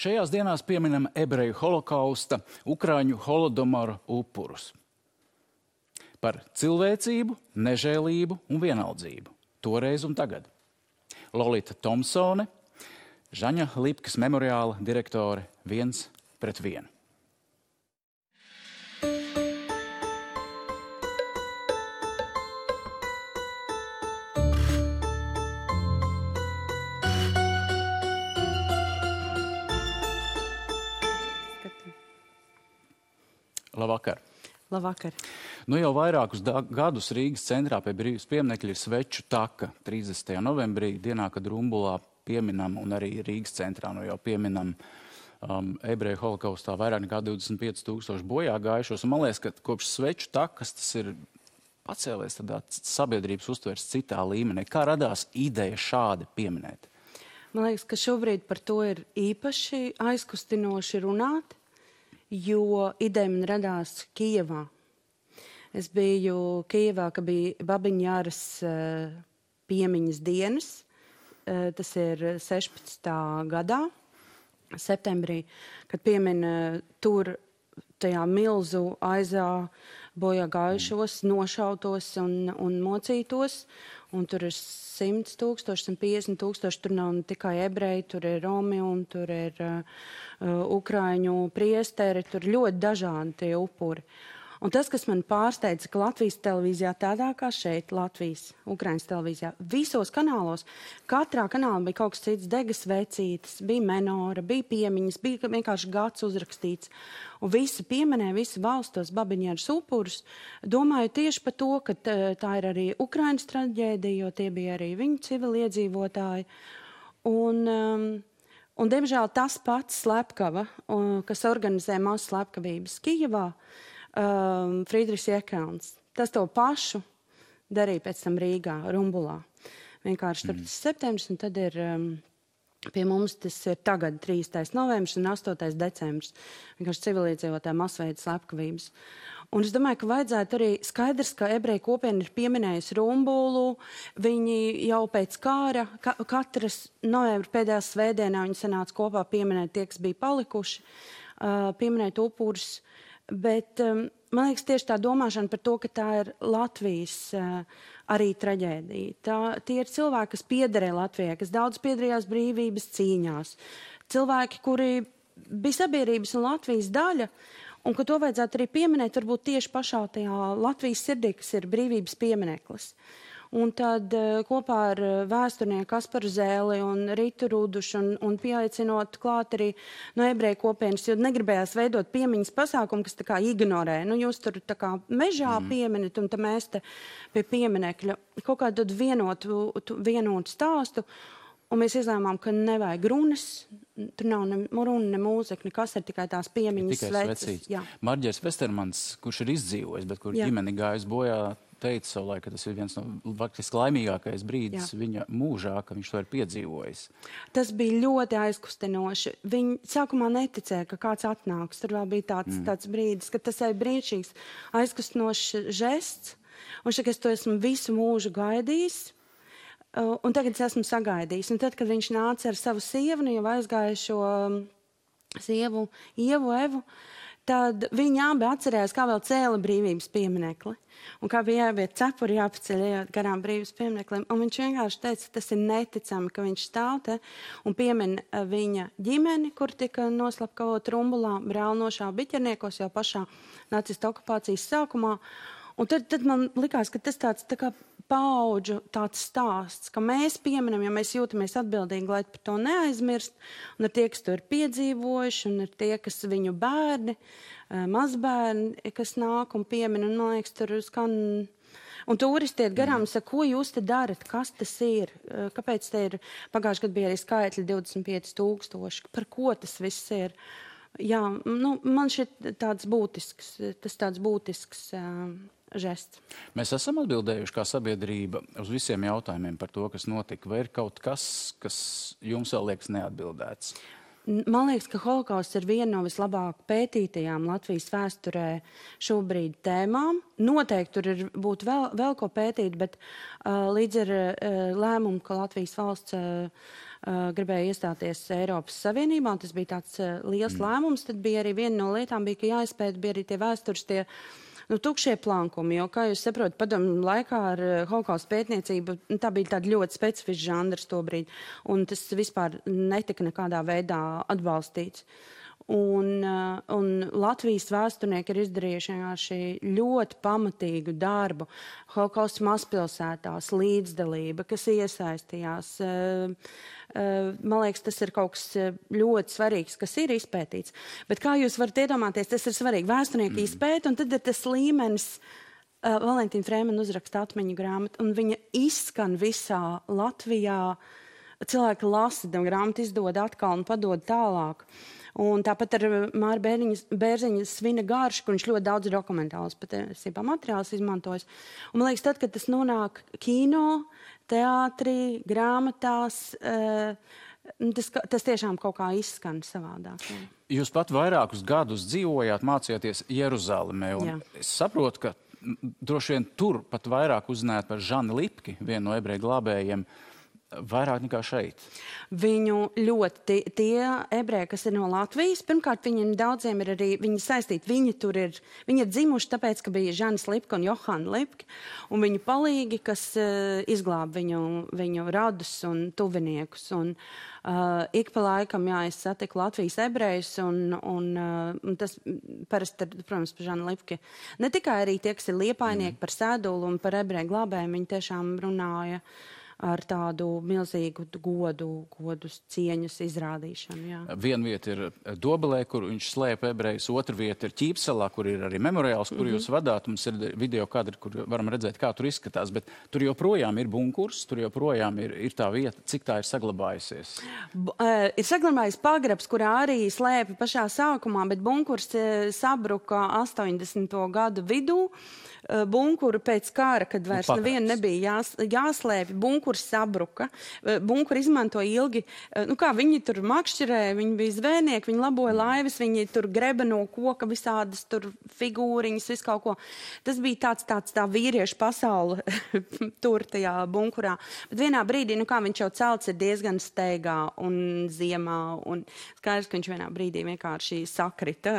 Šajās dienās pieminam ebreju holokausta, ukraiņu holodomoru upurus. Par cilvēcību, nežēlību un vienaldzību. Toreiz un tagad. Lolita Tomsone, Žaņa Lipkas memoriāla direktore 1:1. Labvakar. Labvakar. Nu jau vairākus gadus Rīgas centrā pie Brīvības pieminekļa ir Sveču taka 30. novembrī, dienā, kad Rumbulā pieminam, un arī Rīgas centrā jau pieminam ebreju holokaustā vairāk nekā 25,000 bojā gājušos. Un man liekas, ka kopš Sveču takas tas ir pacēlies tādā sabiedrības uztveres citā līmenī. Kā radās ideja šādi pieminēt? Man liekas, ka šobrīd par to ir īpaši aizkustinoši runāt, jo ideja man radās Kijevā. Es biju Kijevā, kad bija Babiņjāras piemiņas dienas. Tas ir 16. gadā, septembrī, kad piemina tur tajā milzu aizā bojā gājušos, nošautos un mocītos. Un tur ir 100,000, 150,000, tur nav ne tikai ebreji, tur ir romi un tur ir ukraiņu priesteri, tur ļoti dažādi tie upuri. Un tas, kas man pārsteidza, ka Latvijas televīzijā, tādā kā šeit, Latvijas, Ukrainas televīzijā, visos kanālos, katrā kanālā bija kaut kas cits, degas vecītes, bija menora, bija piemiņas, bija vienkārši gads uzrakstīts. Un visi pieminēja, visi valstos Babiņjāras upurus, domāju tieši par to, ka tā ir arī Ukrainas traģēdija, jo tie bija arī viņu civiliedzīvotāji. Un diemžēl tas pats slepkava, kas organizē mazu slepkavības Kijevā, Friedrichs Jekelns. Tas to pašu darīja pēc tam Rīgā, Rumbulā. Vienkārši 4. septembris, un tad ir pie mums tas ir tagad 3. novembris un 8. decembris. Vienkārši civiliedzīvotāju masveida slepkavības. Un es domāju, ka vajadzētu arī skaidrs, ka ebreju kopiena ir pieminējusi Rumbulu. Viņi jau pēc kāra, katras novembra pēdējā svētdienā viņi sanāca kopā pieminēt tie, kas bija palikuši, pieminēt upurus. Bet man liekas tieši tā domāšana par to, ka tā ir Latvijas arī traģēdija. Tie ir cilvēki, kas piederēja Latvijai, kas daudz piederējās brīvības cīņās. Cilvēki, kuri bija sabiedrības un Latvijas daļa, un ka to vajadzētu arī pieminēt varbūt tieši pašā tajā Latvijas sirdī, kas ir brīvības piemineklis. Un tad kopā ar vēsturnieku Kasparu Zēli un Ritu Rudušu un pieaicinot klāt arī no ebreju kopienas, jo negribējās veidot piemiņas pasākumu, kas tā kā ignorē. Nu, jūs tur tā kā mežā pieminat, un tad mēs te pie pieminekļa kaut kādu vienotu stāstu. Un mēs izlēmām, ka nevajag runas, tur nav ne runa, ne mūzika, nekas, ir tikai tās piemiņas sveces. Marģers Vestermans, kurš ir izdzīvojis, bet kur ģimeni gājis bojā, teica savulaik, ka tas ir viens no faktiski laimīgākais brīdis viņa mūžā, ka viņš to ir piedzīvojis. Tas bija ļoti aizkustinoši. Viņi sākumā neticēja, ka kāds atnāks. Tur vēl bija tāds brīdis, ka tas ir brīnišķīgs, aizkustinošs žests. Un šeit es to esmu visu mūžu gaidījis. Un tagad es esmu sagaidījis. Un tad, kad viņš nāca ar savu sievu, jau aizgājušo sievu, Ievu, Evu, tad viņi abi atcerējās, kā vēl cēla brīvības pieminekli. Un kā bija jāiet cepuri jāpaceļ garām brīvības piemineklim. Un viņš vienkārši teica, ka tas ir neticami, ka viņš stāv te un piemin viņa ģimeni, kur tika noslapkavot Rumbulā, brāli nošāva biķerniekos jau pašā nacistu okupācijas sākumā. Un tad man likās, ka tas tāds tā kā paudžu tāds stāsts, ka mēs pieminam, ja mēs jūtamies atbildīgi, lai par to neaizmirst, un ir tie, kas to ir piedzīvojuši, un ir tie, kas viņu bērni, mazbērni, kas nāk un piemin, un man liekas, tur skan. Un turisti iet garām un saka, ko jūs te darat, kas tas ir, kāpēc te ir, pagājuši gadu bija arī skaitļi 25,000, par ko tas viss ir. Jā, nu, man šeit tāds būtisks žests. Mēs esam atbildējuši kā sabiedrība uz visiem jautājumiem par to, kas notika, vai ir kaut kas jums vēl liekas neatbildēts? Man liekas, ka holokausts ir viena no vislabāk pētītajām Latvijas vēsturē šobrīd tēmām. Noteikti tur būtu vēl ko pētīt, bet līdz ar lēmumu, ka Latvijas valsts gribēja iestāties Eiropas Savienībā, un tas bija tāds liels lēmums, tad bija arī viena no lietām, ka jāizpēta, bija arī tie vēstures, tie tukšie plankumi, jo, kā jūs saprotat, padomju laikā ar holokausta pētniecību, tā bija tāda ļoti specifiska žanrs tobrīd, un tas vispār netika nekādā veidā atbalstīts. Un Latvijas vēsturnieki ir izdarījuši vienkārši ļoti pamatīgu darbu. Holokausta mazpilsētās, līdzdalība, kas iesaistījās. Man liekas, tas ir kaut kas ļoti svarīgs, kas ir izpētīts. Bet kā jūs varat iedomāties, tas ir svarīgi. Vēsturnieki izpēta, un tad ir tas līmenis. Valentīna Frēmena uzraksta atmiņu grāmatu, un viņa izskan visā Latvijā. Cilvēki lasa grāmatu, izdod atkal un padod tālāk. Un tāpat ar Māra Bērziņa Svina garšu, kur viņš ļoti daudz dokumentālus patiesībā materiālus izmantojas. Un man liekas, tad, kad tas nonāk kino, teātrī, grāmatās, tas tiešām kaut kā izskan savādāk. Jā. Jūs pat vairākus gadus dzīvojāt, mācījāties Jeruzalemē, un es saprotu, ka droši vien tur pat vairāk uzzinājāt par Žani Lipki, vienu no ebreju glābējiem, vairāk nekā šeit. Viņu ļoti, tie ebreji, kas ir no Latvijas, pirmkārt, viņiem daudziem ir arī, viņi saistīti, viņi ir dzimuši tāpēc, ka bija Žanis Lipka un Johana Lipka, un viņu palīgi, kas izglāb viņu radus un tuviniekus. Un ik pa laikam, jā, es satiku Latvijas ebrejus, un tas parasti, protams, par Žanu Lipki. Ne tikai arī tie, kas ir liepainieki par Sēdulu un par ebreju glābējiem, viņi tiešām runāja ar tādu milzīgu godu cieņas izrādīšanu. Jā. Viena vieta ir Dobelē, kur viņš slēpa ebrejus, otra vieta ir Ķīpsalā, kur ir arī memoriāls, kur jūs vadāt. Mums ir video kadri, kur varam redzēt, kā tur izskatās, bet tur joprojām ir bunkurs, tur joprojām ir tā vieta, cik tā ir saglabājusies. Ir saglabājis pagrabs, kurā arī slēpa pašā sākumā, bet bunkurs sabruka 80. gadu vidū. Bunkuru pēc kara, kad vairs nevienu nebija jāslēpj, bunkurs sabruka. Bunkuru izmantoja ilgi, kā viņi tur makšķerēja, viņi bija zvejnieki, viņi laboja laivas, viņi tur greba no koka visādas tur figūriņas, visu kaut ko. Tas bija tā vīriešu pasaule tur tajā bunkurā. Bet vienā brīdī, viņš jau celts ir diezgan steigā un ziemā, un skaidrs, ka viņš vienā brīdī vienkārši sakrita.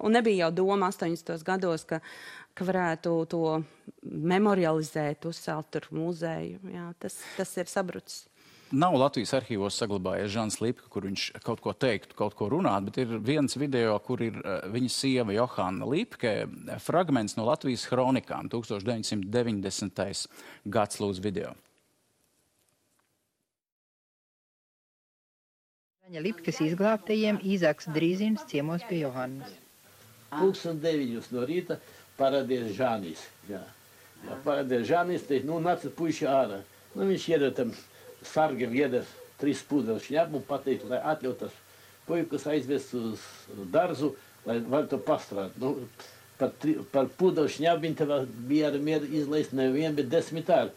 Un nebija jau doma 80. gados, ka varētu to memorializēt, uzcelt tur muzeju. Jā, tas ir sabrucis. Nav Latvijas arhīvos saglabājies Žans Lipka, kur viņš kaut ko teiktu, kaut ko runāt, bet ir viens video, kur ir viņa sieva Johana Lipke, fragments no Latvijas hronikām, 1990. gads, lūdzu video. Žaņa Lipkas izglābtajiem Īzaks Drīzins ciemos pie Johannas. 9:00 no rīta paradies Žanis. Jā, paradies Žanis, te, nāca puiši ārā. Viņš iedod tam sargam, iedod 3 pūdeļu šņabu un pateikt, lai atļautas puikas aizvest uz darzu, lai var to pastrāt. Par pūdeļu šņabu viņi tev bija ar mieru izlaist nevien, bet 10 ār.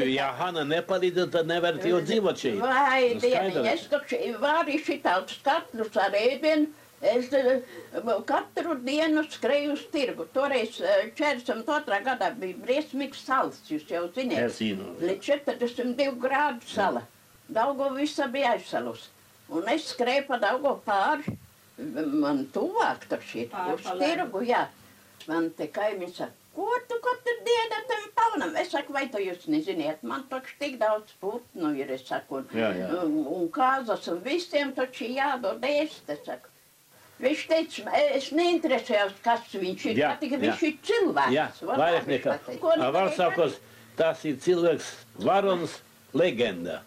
Ja Hana nepalīdz, tad nevar jau dzīvot šeit. Vai, dieniņ, es taču varu šitāds katlus ar ēdienu. Es katru dienu skreju uz tirgu. Toreiz 42. gadā bija briesmīgs salas, jūs jau ziniet. Es zinu. Līdz 42 grādu sala. Daugava visa bija aizsalus. Un es skrēju pa Daugavu pāri. Man tuvāk taču ir. Uz tirgu, jā. Man te kaimiņš saka, ko tu katru dienu tam paunam? Es saku, vai to jūs neziniet? Man taču tik daudz putnu ir, es saku. Un kāzas un visiem taču jādod ēst, es saku. Viņš teica, es neinteresējos, kas viņš ir, ka viņš ir cilvēks. Jā, vairāk nekā. Var sakos, tas ir cilvēks, varons, legenda.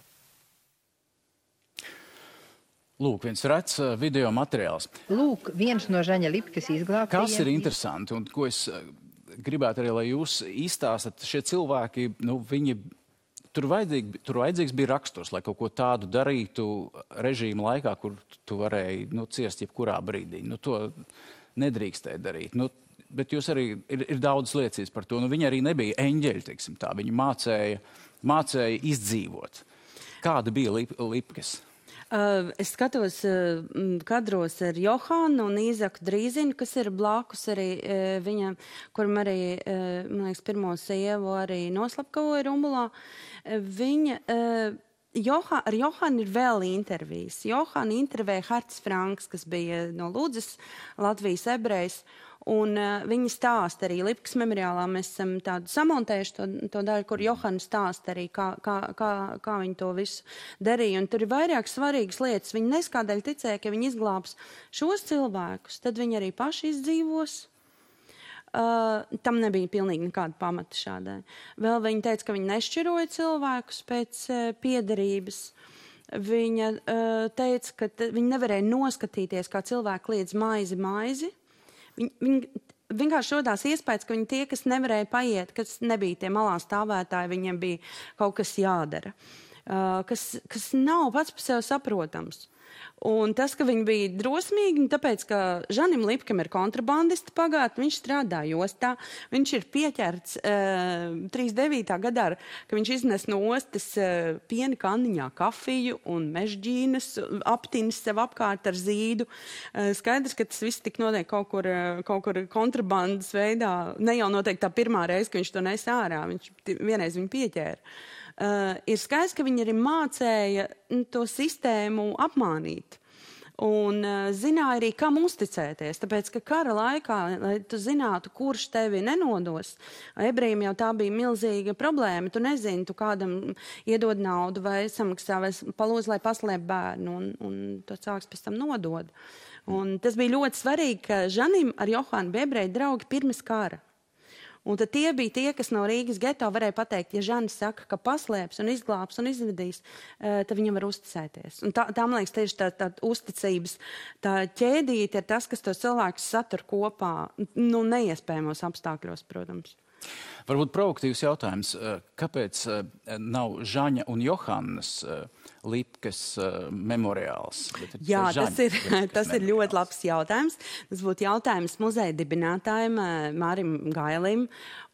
Lūk, viens rets video materiāls. Lūk, viens no Žaņa Lipkas izglābtajiem. Kas ir interesanti un ko es gribētu arī, lai jūs izstāstat, šie cilvēki, viņi... Tur vajadzīgs bija raksturs, lai kaut ko tādu darītu režīma laikā, kur tu varēji ciest jebkurā brīdī. To nedrīkstēja darīt. Bet jūs arī ir daudz liecības par to. Viņi arī nebija eņģeļi, teiksim tā. Viņi mācēja izdzīvot. Kāda bija Lipkas? Es skatos kadros ar Johānu un Īzaku Drīzinu, kas ir blakus arī viņam, kuram arī, man liekas, pirmo sievu arī noslapkavoja Rumbulā. Viņa, ar Johānu ir vēl intervijas. Johānu intervēja Harts Franks, kas bija no Ludzas, Latvijas ebrejs. Un viņi stāsta arī Lipkas memoriālā, mēs esam tādu samontējuši to daļu, kur Johāna stāsta arī, kā viņi to visu darīja. Un tur ir vairāk svarīgas lietas. Viņi neskādēļ ticēja, ka viņi izglābs šos cilvēkus, tad viņi arī paši izdzīvos. Tam nebija pilnīgi nekāda pamata šādai. Vēl viņi teica, ka viņi nešķiroja cilvēkus pēc piederības. Viņa teica, ka viņi nevarēja noskatīties, kā cilvēki liedz maizi. Viņi vienkārši rodās iespējas, ka viņi tie, kas nevarēja paiet, kas nebija tie malā stāvētāji, viņiem bija kaut kas jādara, kas nav pats par sevi saprotams. Un tas, ka viņi bija drosmīgi, tāpēc, ka Žanim Lipkam ir kontrabandista pagātne, viņš strādā jostā, viņš ir pieķerts 39. gadā, ka viņš iznes no ostas piena kanniņā kafiju un mežģīnas, aptinis sev apkārt ar zīdu. Skaidrs, ka tas viss tik notiek kaut kur kontrabandas veidā, ne jau noteikti tā pirmā reize, ka viņš to nes ārā, viņš vienreiz viņu pieķēra. Ir skaidrs, ka viņi arī mācēja to sistēmu apmānīt. Un zināja arī, kam uzticēties. Tāpēc, ka kara laikā, lai tu zinātu, kurš tevi nenodos, ebrejiem jau tā bija milzīga problēma. Tu nezini, tu kādam iedod naudu vai samaksā vai palūdz, lai paslēp bērnu, un to cilvēks pēc tam nodod. Un tas bija ļoti svarīgi, ka Žanim ar Johānu bija ebreju draugi pirms kara. Un tad tie bija tie, kas no Rīgas geto varēja pateikt, ja Žanis saka, ka paslēps un izglābs un izvedīs, tad viņam var uzticēties. Un tā man liekas, tieši tā uzticības, tā ķēdīte ir tas, kas tos cilvēkus satur kopā, neiespējamos apstākļos, protams. Varbūt provokatīvs jautājums. Kāpēc nav Žaņa un Johānas Lipkas memoriāls? Jā, tas ir ļoti labs jautājums. Tas būtu jautājums muzeja dibinātājiem Mārim Gailim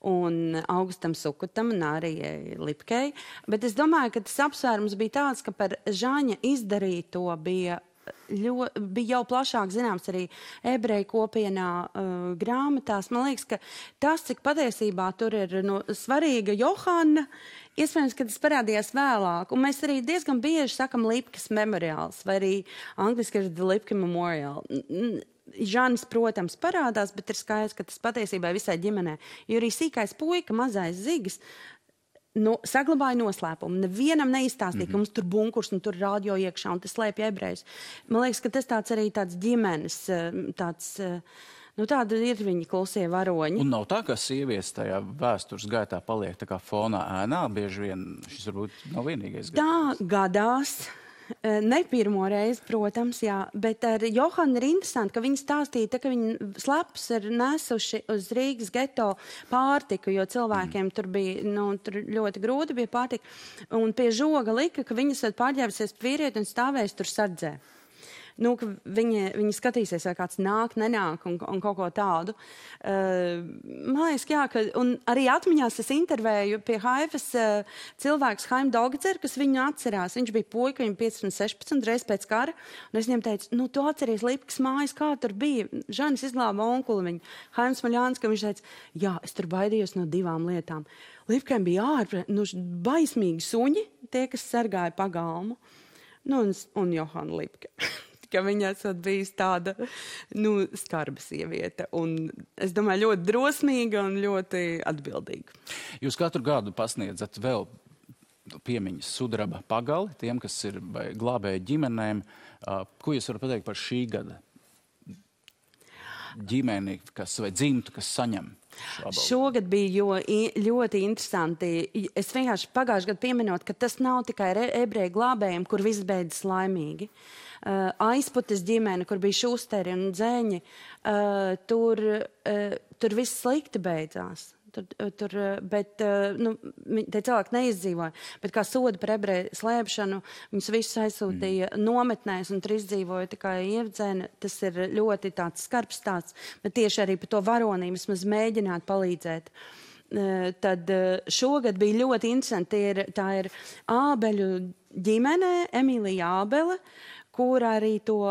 un Augustam Sukutam un arī Lipkai. Bet es domāju, ka tas apsvērums bija tāds, ka par Žaņa izdarīto bija jau plašāk zināms arī ebreju kopienā grāmatās. Man liekas, ka tas, cik patiesībā tur ir svarīga Johāna, iespējams, ka tas parādījās vēlāk. Un mēs arī diezgan bieži sakam Lipkas memoriāls, vai arī angliski ir The Lipka Memorial. Žanis, protams, parādās, bet ir skaidrs, ka tas patiesībā visai ģimenē. Jo arī sīkais puika, mazais Zigis, saglabāja noslēpumu. Nevienam neizstāstīja, ka mums tur bunkurs un tur rādio iekšā un tas slēpja ebrejus. Man liekas, ka tas arī tāds ģimenes, tāda ir viņi klusie varoņi. Un nav tā, ka sievietes tajā vēstures gaitā paliek tā kā fonā ēnā, bieži vien šis varbūt nav vienīgais gadījums. Tā gadās. Ne pirmo reizi, protams, jā, bet ar Johānu ir interesanti, ka viņi stāstīja, ka viņi slepus ir nesuši uz Rīgas geto pārtiku, jo cilvēkiem tur bija, tur ļoti grūti bija pārtika, un pie žoga lika, ka viņas var pārģērbusies vīrieti un stāvēs tur sardzē. Ka viņi skatīsies, vai kāds nāk, nenāk un kaut ko tādu. Man liekas, jā, un arī atmiņās es intervēju pie Haifas cilvēks Haim Dolgacer, kas viņu atcerās. Viņš bija puika, viņam 15-16 reiz pēc kara, un es viņam teicu, tu atceries Lipkas mājas, kā tur bija. Žanis izglāba onkuli viņu. Haims Maļāns, ka viņš teica, jā, es tur baidījos no 2 lietām. Lipkai bija baismīgi suņi, tie, kas sargāja pagalmu, un Johāna Lipka. Ka viņa esot bijis tāda, skarba sieviete. Un es domāju, ļoti drosmīga un ļoti atbildīga. Jūs katru gadu pasniedzat vēl piemiņas sudraba pagali tiem, kas ir glābēji ģimenēm. Ko jūs varat pateikt par šī gada ģimeni, vai dzimtu, kas saņem? Šogad bija ļoti interesanti. Es vienkārši pagājušajā gadā pieminot, ka tas nav tikai ebreju glābējiem, kur viss beidzas laimīgi. Aizputes ģimene, kur bija Šusteri un Dzēņi, tur viss slikti beidzās. Bet tie cilvēki neizdzīvoja. Bet kā soda par ebreju slēpšanu, viņus visus aizsūtīja nometnēs un tur izdzīvoja tikai Ievdzēna. Tas ir ļoti tāds skarbs stāsts, bet tieši arī par to varonību vismaz mēģināt palīdzēt. tad šogad bija ļoti interesanti. Tā ir Ābeļu ģimene, Emīlija Ābele, kur arī to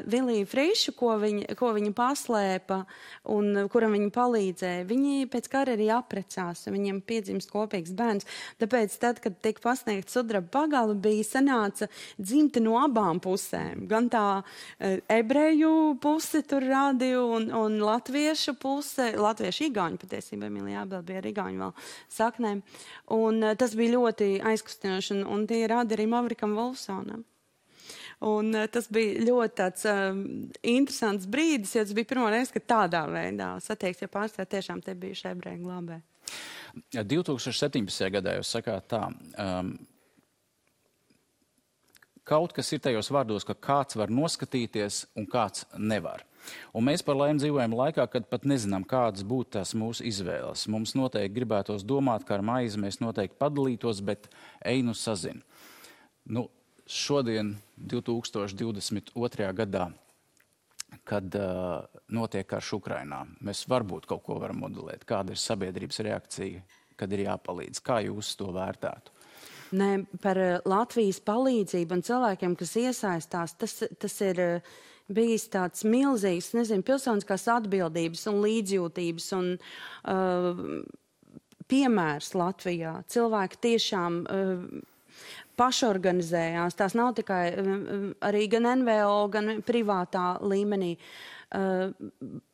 Viliju Frišu, ko viņa paslēpa un kuram viņa palīdzēja, viņi pēc kara arī apprecās, viņiem piedzimst kopīgs bērns. Tāpēc tad, kad tika pasniegta sudraba pagale, bija sanāca dzimta no abām pusēm. Gan tā ebreju puse tur rādīja un latviešu puse, latviešu igauņu patiesībā, Emīlija Ābele bija ar igauņu vēl saknēm. Un tas bija ļoti aizkustinoši, un tie rādi arī Mavrikam Wolfsonam. Un tas bija ļoti tāds interesants brīdis, jo tas bija pirmo reizi, kad tādā veidā satiekas, ja pārstāv tiešām te bijuši ebreju glābē. 2017. gadā jūs sakāt tā, kaut kas ir tajos vārdos, ka kāds var noskatīties un kāds nevar. Un mēs par laimi dzīvojam laikā, kad pat nezinām, kādas būtu tās mūsu izvēles. Mums noteikti gribētos domāt, ka ar maizi mēs noteikti padalītos, bet ej nu sazin. Nu, šodien, 2022. gadā, kad notiek karš Ukrainā, mēs varbūt kaut ko varam modelēt. Kāda ir sabiedrības reakcija, kad ir jāpalīdz? Kā jūs to vērtētu? Nē, par Latvijas palīdzību un cilvēkiem, kas iesaistās, tas ir bijis tāds milzīgs, pilsoniskās atbildības un līdzjūtības un piemērs Latvijā. Cilvēki tiešām pašorganizējās. Tās nav tikai arī gan NVO, gan privātā līmenī.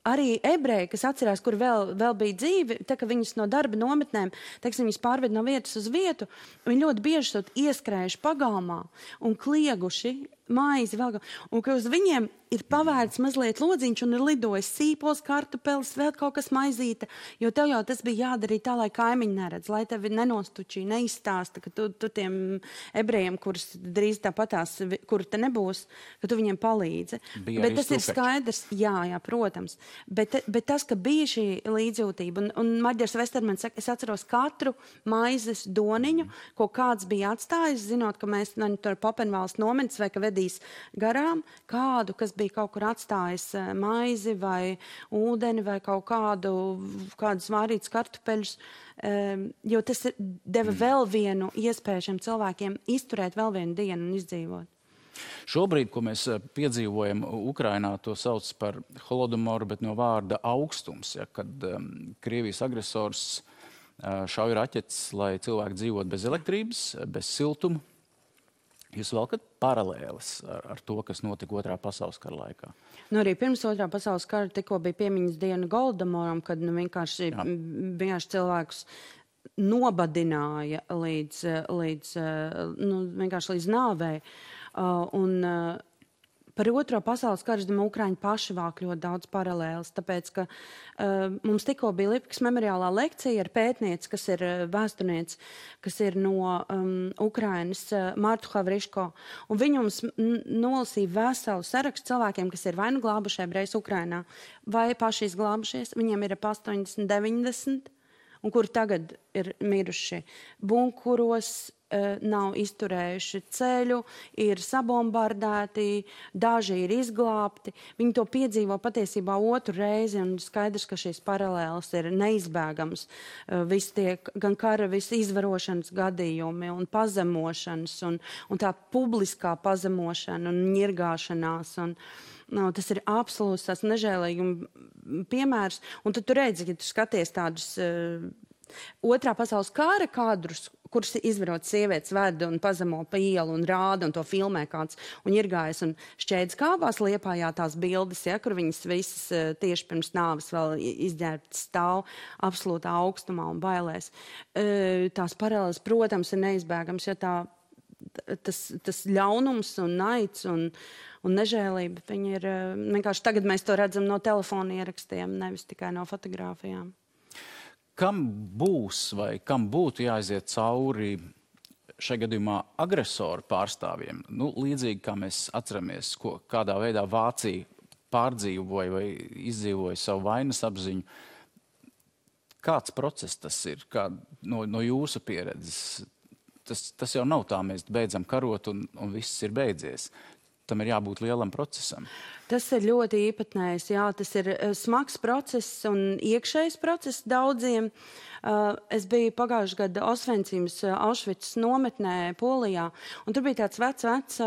Arī ebreji, kas atcerās, kur vēl bija dzīvi, tā ka viņas no darba nometnēm, teiksim, viņas pārved no vietas uz vietu, viņi ļoti bieži sot ieskrējuši pagalmā un klieguši maizi vēl, un ka uz viņiem ir pavērts mazliet lodziņš un ir lidojis sīpols, kartupelis, vēl kaut kas maizīta, jo tev jau tas bija jādarīt tā, lai kaimiņi neredz, lai tevi nenostučī, neizstāsta, ka tu tiem ebrejiem, kurus drīz tāpatās, kuru te nebūs, ka tu viņiem palīdzi. Bet tas ir skaidrs, jā, protams. Bet tas, ka bija šī līdzjūtība, un Maģers Vestermans saka, es atceros katru maizes doniņu, ko kāds bija atstājis, zinot, ka mēs tur Papenvalsts nometnes vai ka vedīs garām kādu, kas bija kaut kur atstājis maizi vai ūdeni vai kaut kādus vārītus kartupeļus, jo tas deva vēl vienu iespēju šiem cilvēkiem izturēt vēl vienu dienu un izdzīvot. Šobrīd, ko mēs piedzīvojam Ukrainā, to sauc par holodomoru, bet no vārda augstums, ja, kad Krievijas agresors šauj raķetes, lai cilvēki dzīvot bez elektrības, bez siltuma. Jūs valkat paralēles ar to, kas notika Otrā pasaules kara laikā? Nu, arī pirms Otrā pasaules kara tikko bija piemiņas diena Goldomoram, kad vienkārši cilvēkus nobadināja vienkārši līdz nāvei. Par Otro pasaules karu, Ukraiņi paši vāk ļoti daudz paralēles, tāpēc, ka mums tikko bija Lipkas memoriālā lekcija ar pētnieci, kas ir vēsturnieci, kas ir no Ukrainas, Martu Havriško, un viņi mums nolasīja veselu sarakstu cilvēkiem, kas ir vai nu glābuši ebrejus Ukrainā, vai paši izglābušies, viņiem ir ap 80, 90, un kuri tagad ir miruši bunkuros, nav izturējuši ceļu, ir sabombardēti, daži ir izglābti. Viņi to piedzīvo patiesībā otru reizi, un skaidrs, ka šīs paralēles ir neizbēgams. Visi tie gan kara, visi izvarošanas gadījumi un pazemošanas, un tā publiskā pazemošana un ņirgāšanās. Tas ir absolūts tās nežēlīguma piemērs. Un tad tu redzi, ka tu skaties tādus Otrā pasaules kara kadrus, kurus izvarot sievietes ved un pazemo pa ielu un rāda un to filmē kāds un ņirgājas un šķēdz kāvās Liepājā tās bildes, ja, kur viņas visas tieši pirms nāves vēl izģērbtas stāv absolūtā augstumā un bailēs. Tās paralēles, protams, ir neizbēgams, jo tas ļaunums un naids un nežēlība, viņi ir vienkārši tagad mēs to redzam no telefona ierakstiem, nevis tikai no fotogrāfijām. Kam būs vai kam būtu jāaiziet cauri šajā gadījumā agresoru pārstāvjiem? Nu, līdzīgi kā mēs atceramies, kādā veidā Vācija pārdzīvoja vai izdzīvoja savu vainas apziņu. Kāds process tas ir? No jūsu pieredzes? Tas jau nav tā, mēs beidzam karot un viss ir beidzies. tam ir jābūt lielam procesam. Tas ir ļoti īpatnējs, jā, tas ir smags process un iekšējs process daudziem. Es biju pagājušajā gada Osvencimas Aušvicas nometnē Polijā, un tur bija tāds vecs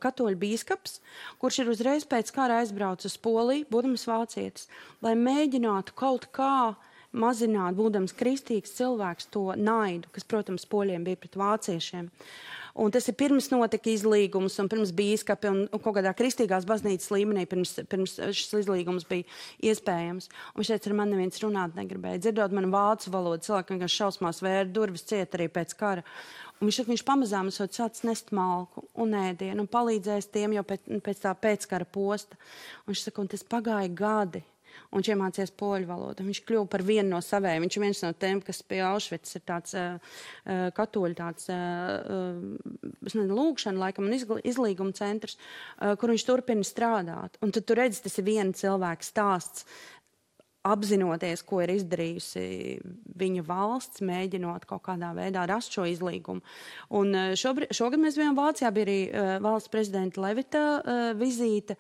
katoļu bīskaps, kurš ir uzreiz pēc kara aizbraucis uz Poliju, būdams vācietis, lai mēģinātu kaut kā mazināt, būdams kristīgs cilvēks, to naidu, kas, protams, poļiem bija pret vāciešiem. Un tas ir pirms notika izlīgums un pirms bīskapi un kaut kādā kristīgās baznīcas līmenī pirms šis izlīgums bija iespējams. Un šeit ar mani neviens runāt negribēja. Dzirdot manu vācu valodu, cilvēki vienkārši šausmās vēra durvis ciet arī pēc kara. Un viņš pamazām sācis nest malku un ēdienu un palīdzējis tiem jau pēc tā pēckara posta. Un viņš saka, un tas pagāja gadi. Un viņš iemācījās poļu valodu. Viņš kļuva par vienu no savējiem. Viņš ir viens no tiem, kas pie Aušvicas ir tāds katoļu lūgšana, laikam, un izlīguma centrs, kur viņš turpina strādāt. Un tad tu redzi, tas ir viena cilvēka stāsts, apzinoties, ko ir izdarījusi viņa valsts, mēģinot kaut kādā veidā rast šo izlīgumu. Un šogad mēs bijām Vācijā, bija arī valsts prezidenta Levita vizīte.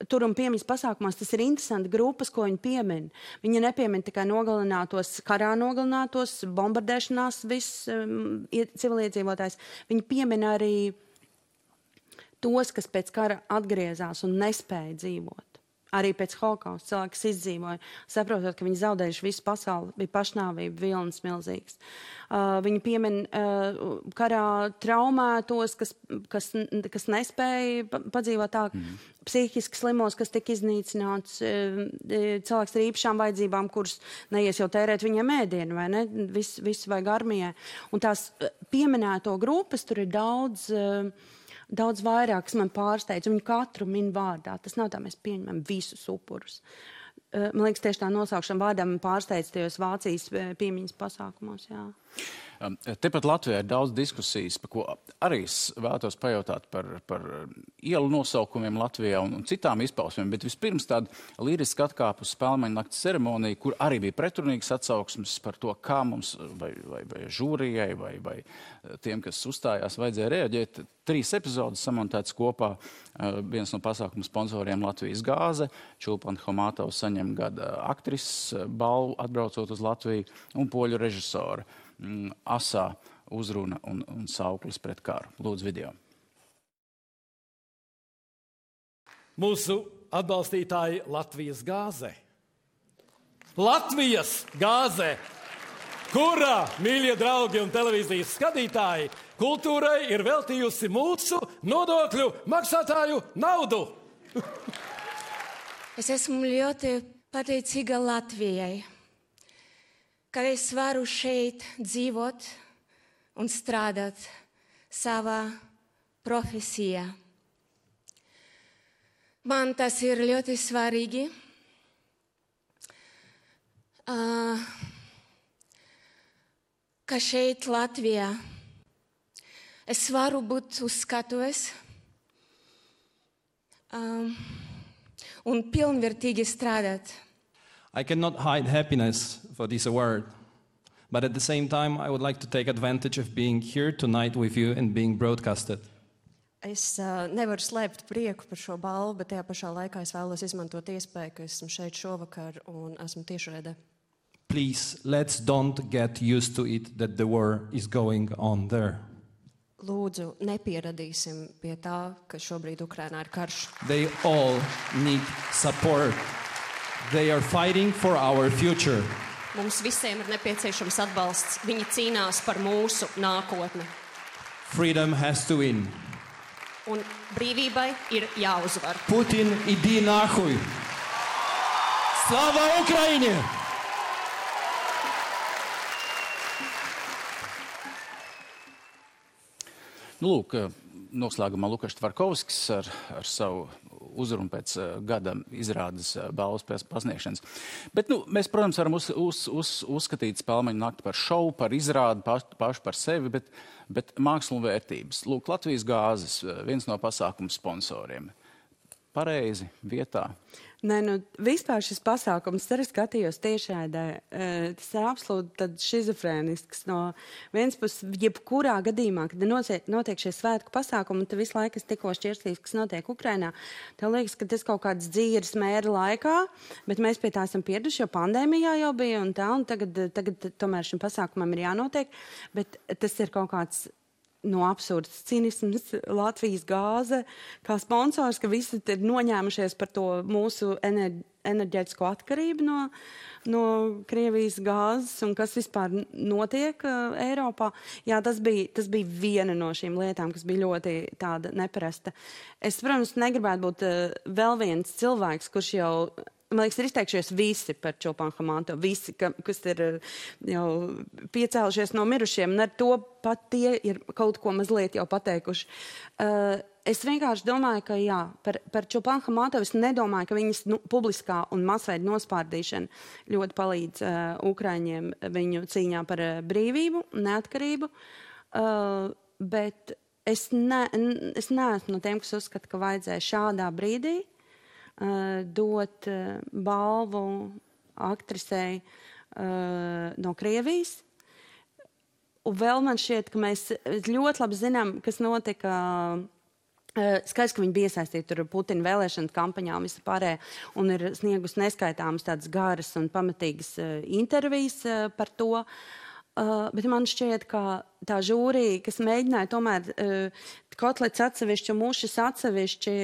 Tur un piemiņas pasākumos tas ir interesanti grupas, ko viņi piemin. Viņi nepiemin tikai karā nogalinātos, bombardēšanās viss civiliedzīvotājs. Viņi piemin arī tos, kas pēc kara atgriezās un nespēja dzīvot. Arī pēc holokausta cilvēks izdzīvoja, saprotot, ka viņi zaudējuši visu pasauli, bija pašnāvība, vilnis milzīgs. Viņi piemin karā traumētos, kas nespēja padzīvot tā, psihiski slimos, kas tika iznīcināts, cilvēks ar īpašām vajadzībām, kurus neies jau tērēt viņiem ēdienu, vai ne? Visu vajag armijai. Un tās pieminēto grupas tur ir daudz vairāk, kas man pārsteidz. Viņu katru min vārdā. Tas nav tā, mēs pieņemam visus upurus. Man liekas, tieši tā nosaukšana vārdā man pārsteidz tajos Vācijas piemiņas pasākumos, jā. Tepat Latvijā ir daudz diskusijas, par ko arī vēlētos pajautāt par ielu nosaukumiem Latvijā un citām izpausmēm, bet vispirms tāda liriska atkāpa uz Spēlmeņa nakts ceremoniju, kur arī bija pretrunīgas atsauksmes par to, kā mums vai žūrijai vai tiem, kas uzstājās, vajadzēja reaģēt. 3 epizodes samontētas kopā. Viens no pasākuma sponsoriem Latvijas gāze, Čulpana Homatovs saņem gada aktrises balvu atbraucot uz Latviju un poļu režisora. Asā uzruna un sauklis pret karu. Lūdzu video. Mūsu atbalstītāji Latvijas gāze. Latvijas gāze, kurā, mīļie draugi un televīzijas skatītāji, kultūrai ir veltījusi mūsu nodokļu maksātāju naudu. Es esmu ļoti pateicīga Latvijai, ka es varu šeit dzīvot un strādāt savā profesijā. Man tas ir ļoti svarīgi. Ka šeit Latvijā es varu būt uz skatuves un pilnvērtīgi strādāt. I cannot hide happiness for this award, but at the same time, I would like to take advantage of being here tonight with you and being broadcasted. Es nevaru slēpt prieku par šo balvu, bet tajā pašā laikā es vēlos izmantot iespēju, ka esmu šeit šovakar un esmu tiešraidē. Please, let's don't get used to it that the war is going on there. Lūdzu, nepieradīsim pie tā, ka šobrīd Ukrainā ir karš. They all need support. They are fighting for our future. Mums visiem ir nepieciešams atbalsts. Viņi cīnās par mūsu nākotni. Freedom has to win. Un brīvībai ir jāuzvar. Putin, idi nahuj! Slava Ukraiņai! Lūk, noslēgumā Lukašs Tvarkovskis ar savu uzrunu pēc gada izrādes balvas pasniegšanas. Bet, mēs, protams, varam uzskatīt Spēlmeņa nakti par šovu, par izrādi, pašu par sevi, bet mākslu un vērtības. Lūk, Latvijas gāzes, viens no pasākuma sponsoriem. Pareizi, vietā. Nē, vispār šis pasākums, arī skatījos tiešraidē, tas ir absolūti šizofrēnisks. No vienas puses, jebkurā gadījumā, kad notiek šie svētku pasākumi, un te visu laiku es tikko šķirstījos, kas notiek Ukrainā, tev liekas, ka tas kaut kāds dzīves mēra laikā, bet mēs pie tā esam pieraduši, jo pandēmijā jau bija un tā, un tagad tomēr šim pasākumam ir jānotiek, bet tas ir kaut kāds absurds cinisms, Latvijas gāze, kā sponsors, ka visi ir noņēmušies par to mūsu enerģētisko atkarību no Krievijas gāzes un kas vispār notiek Eiropā. Jā, tas bija viena no šīm lietām, kas bija ļoti tāda neparasta. Es, protams, negribētu būt vēl viens cilvēks, kurš jau, man liekas, ir izteikšies visi par Čulpanu Hamanto, visi, kas ir jau piecēlušies no mirušiem, un ar to pat tie ir kaut ko mazliet jau pateikuši. Es vienkārši domāju, ka jā, par Čulpanu Hamanto es nedomāju, ka viņas publiskā un masveida nospārdīšana ļoti palīdz Ukraiņiem viņu cīņā par brīvību, neatkarību, bet es neesmu no tiem, kas uzskata, ka vajadzēja šādā brīdī dot balvu aktrisei no Krievijas. Un vēl man šķiet, ka mēs ļoti labi zinām, kas notika. Skaidrs, ka viņi bija iesaistīti tur Putina vēlēšana kampaņā un visu pārējā, un ir sniegus neskaitāmas tādas garas un pamatīgas intervijas par to. Bet man šķiet, ka tā žūrija, kas mēģināja tomēr kotlets atsevišķi un mušas atsevišķi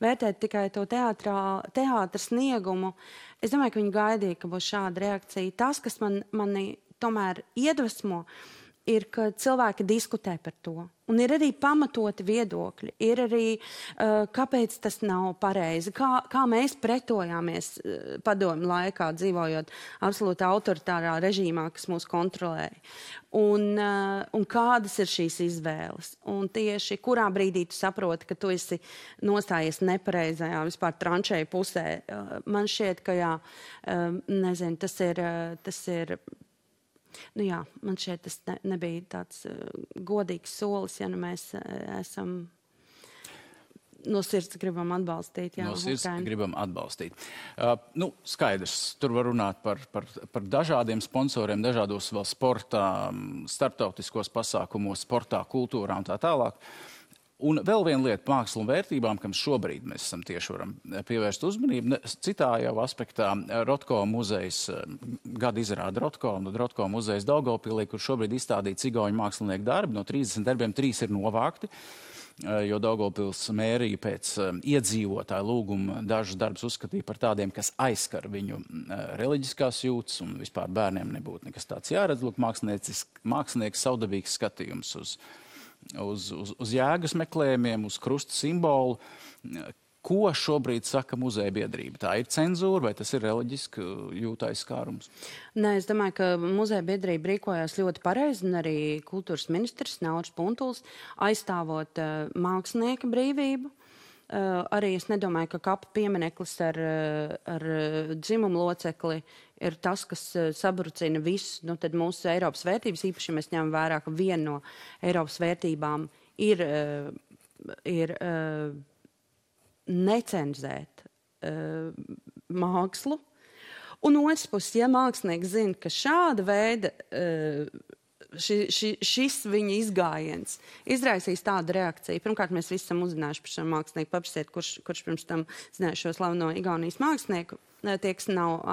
vērtēt tikai to teātra sniegumu, es domāju, ka viņi gaidīja, ka būs šāda reakcija. Tas, kas mani tomēr iedvesmo, ir, ka cilvēki diskutē par to. Un ir arī pamatoti viedokļi. Ir arī, kāpēc tas nav pareizi. Kā mēs pretojāmies padomju laikā, dzīvojot absolūti autoritārā režīmā, kas mūs kontrolēja. Un kādas ir šīs izvēles. Un tieši kurā brīdī tu saproti, ka tu esi nostājies nepareizajā, vispār tranšēju pusē. Man šķiet, ka jā, nezinu, tas ir nu jā, man šeit tas nebija tāds godīgs solis, ja mēs esam no sirds gribam atbalstīt. Jā, no sirds gribam atbalstīt. Skaidrs, tur var runāt par dažādiem sponsoriem, dažādos vēl sportā, starptautiskos pasākumos, sportā, kultūrā un tā tālāk. Un vēl viena lieta mākslu un vērtībām, kam šobrīd mēs esam tieši varam pievērst uzmanību. Citā jau aspektā Rotko muzejs, gada izrāda Rotko, un Rotko muzejs Daugavpilī, kur šobrīd izstādīti cigauņu mākslinieku darbi. No 30 darbiem 3 ir novākti, jo Daugavpils mērija pēc iedzīvotāju lūguma dažus darbus uzskatīja par tādiem, kas aizskar viņu reliģiskās jūtas, un vispār bērniem nebūtu nekas tāds jāredz. Lūk, mākslinieks savdabīgs skatījums uz jēgas meklējumiem, uz krusta simbolu. Ko šobrīd saka muzeja biedrība? Tā ir cenzūra vai tas ir reliģiski jūtais skārums? Nē, es domāju, ka muzeja biedrība rīkojās ļoti pareizi, un arī kultūras ministrs Nauris Puntuls aizstāvot mākslinieka brīvību. Arī es nedomāju, ka kapa piemineklis ar dzimumu locekli ir tas, kas sabrucina visus, tad mūsu Eiropas vērtības, īpaši mēs ņemam vērā, ka viena no Eiropas vērtībām ir necenzēt mākslu. Un otrs puses, ja mākslinieks zina, ka šāda veida šis viņa izgājiens izraisīs tādu reakciju. Pirmkārt, mēs visi esam uzzinājuši par šo mākslinieku, paprasiet, kurš pirms tam zināja šo slaveno Igaunijas mākslinieku, tie, kas nav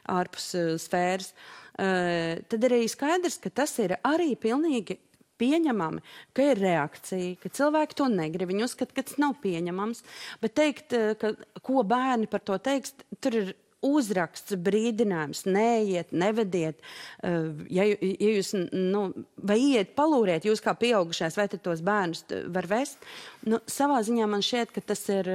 ārpus sfēras. Tad arī skaidrs, ka tas ir arī pilnīgi pieņemami, ka ir reakcija, ka cilvēki to negrib, viņi uzskata, ka tas nav pieņemams, bet teikt, ka ko bērni par to teiks, tur ir uzraksts, brīdinājums, neiet, nevediet, ja jūs, vai iet, palūriet, jūs kā pieaugušais, vai tad tos bērnus var vest. Savā ziņā man šķiet, ka tas ir,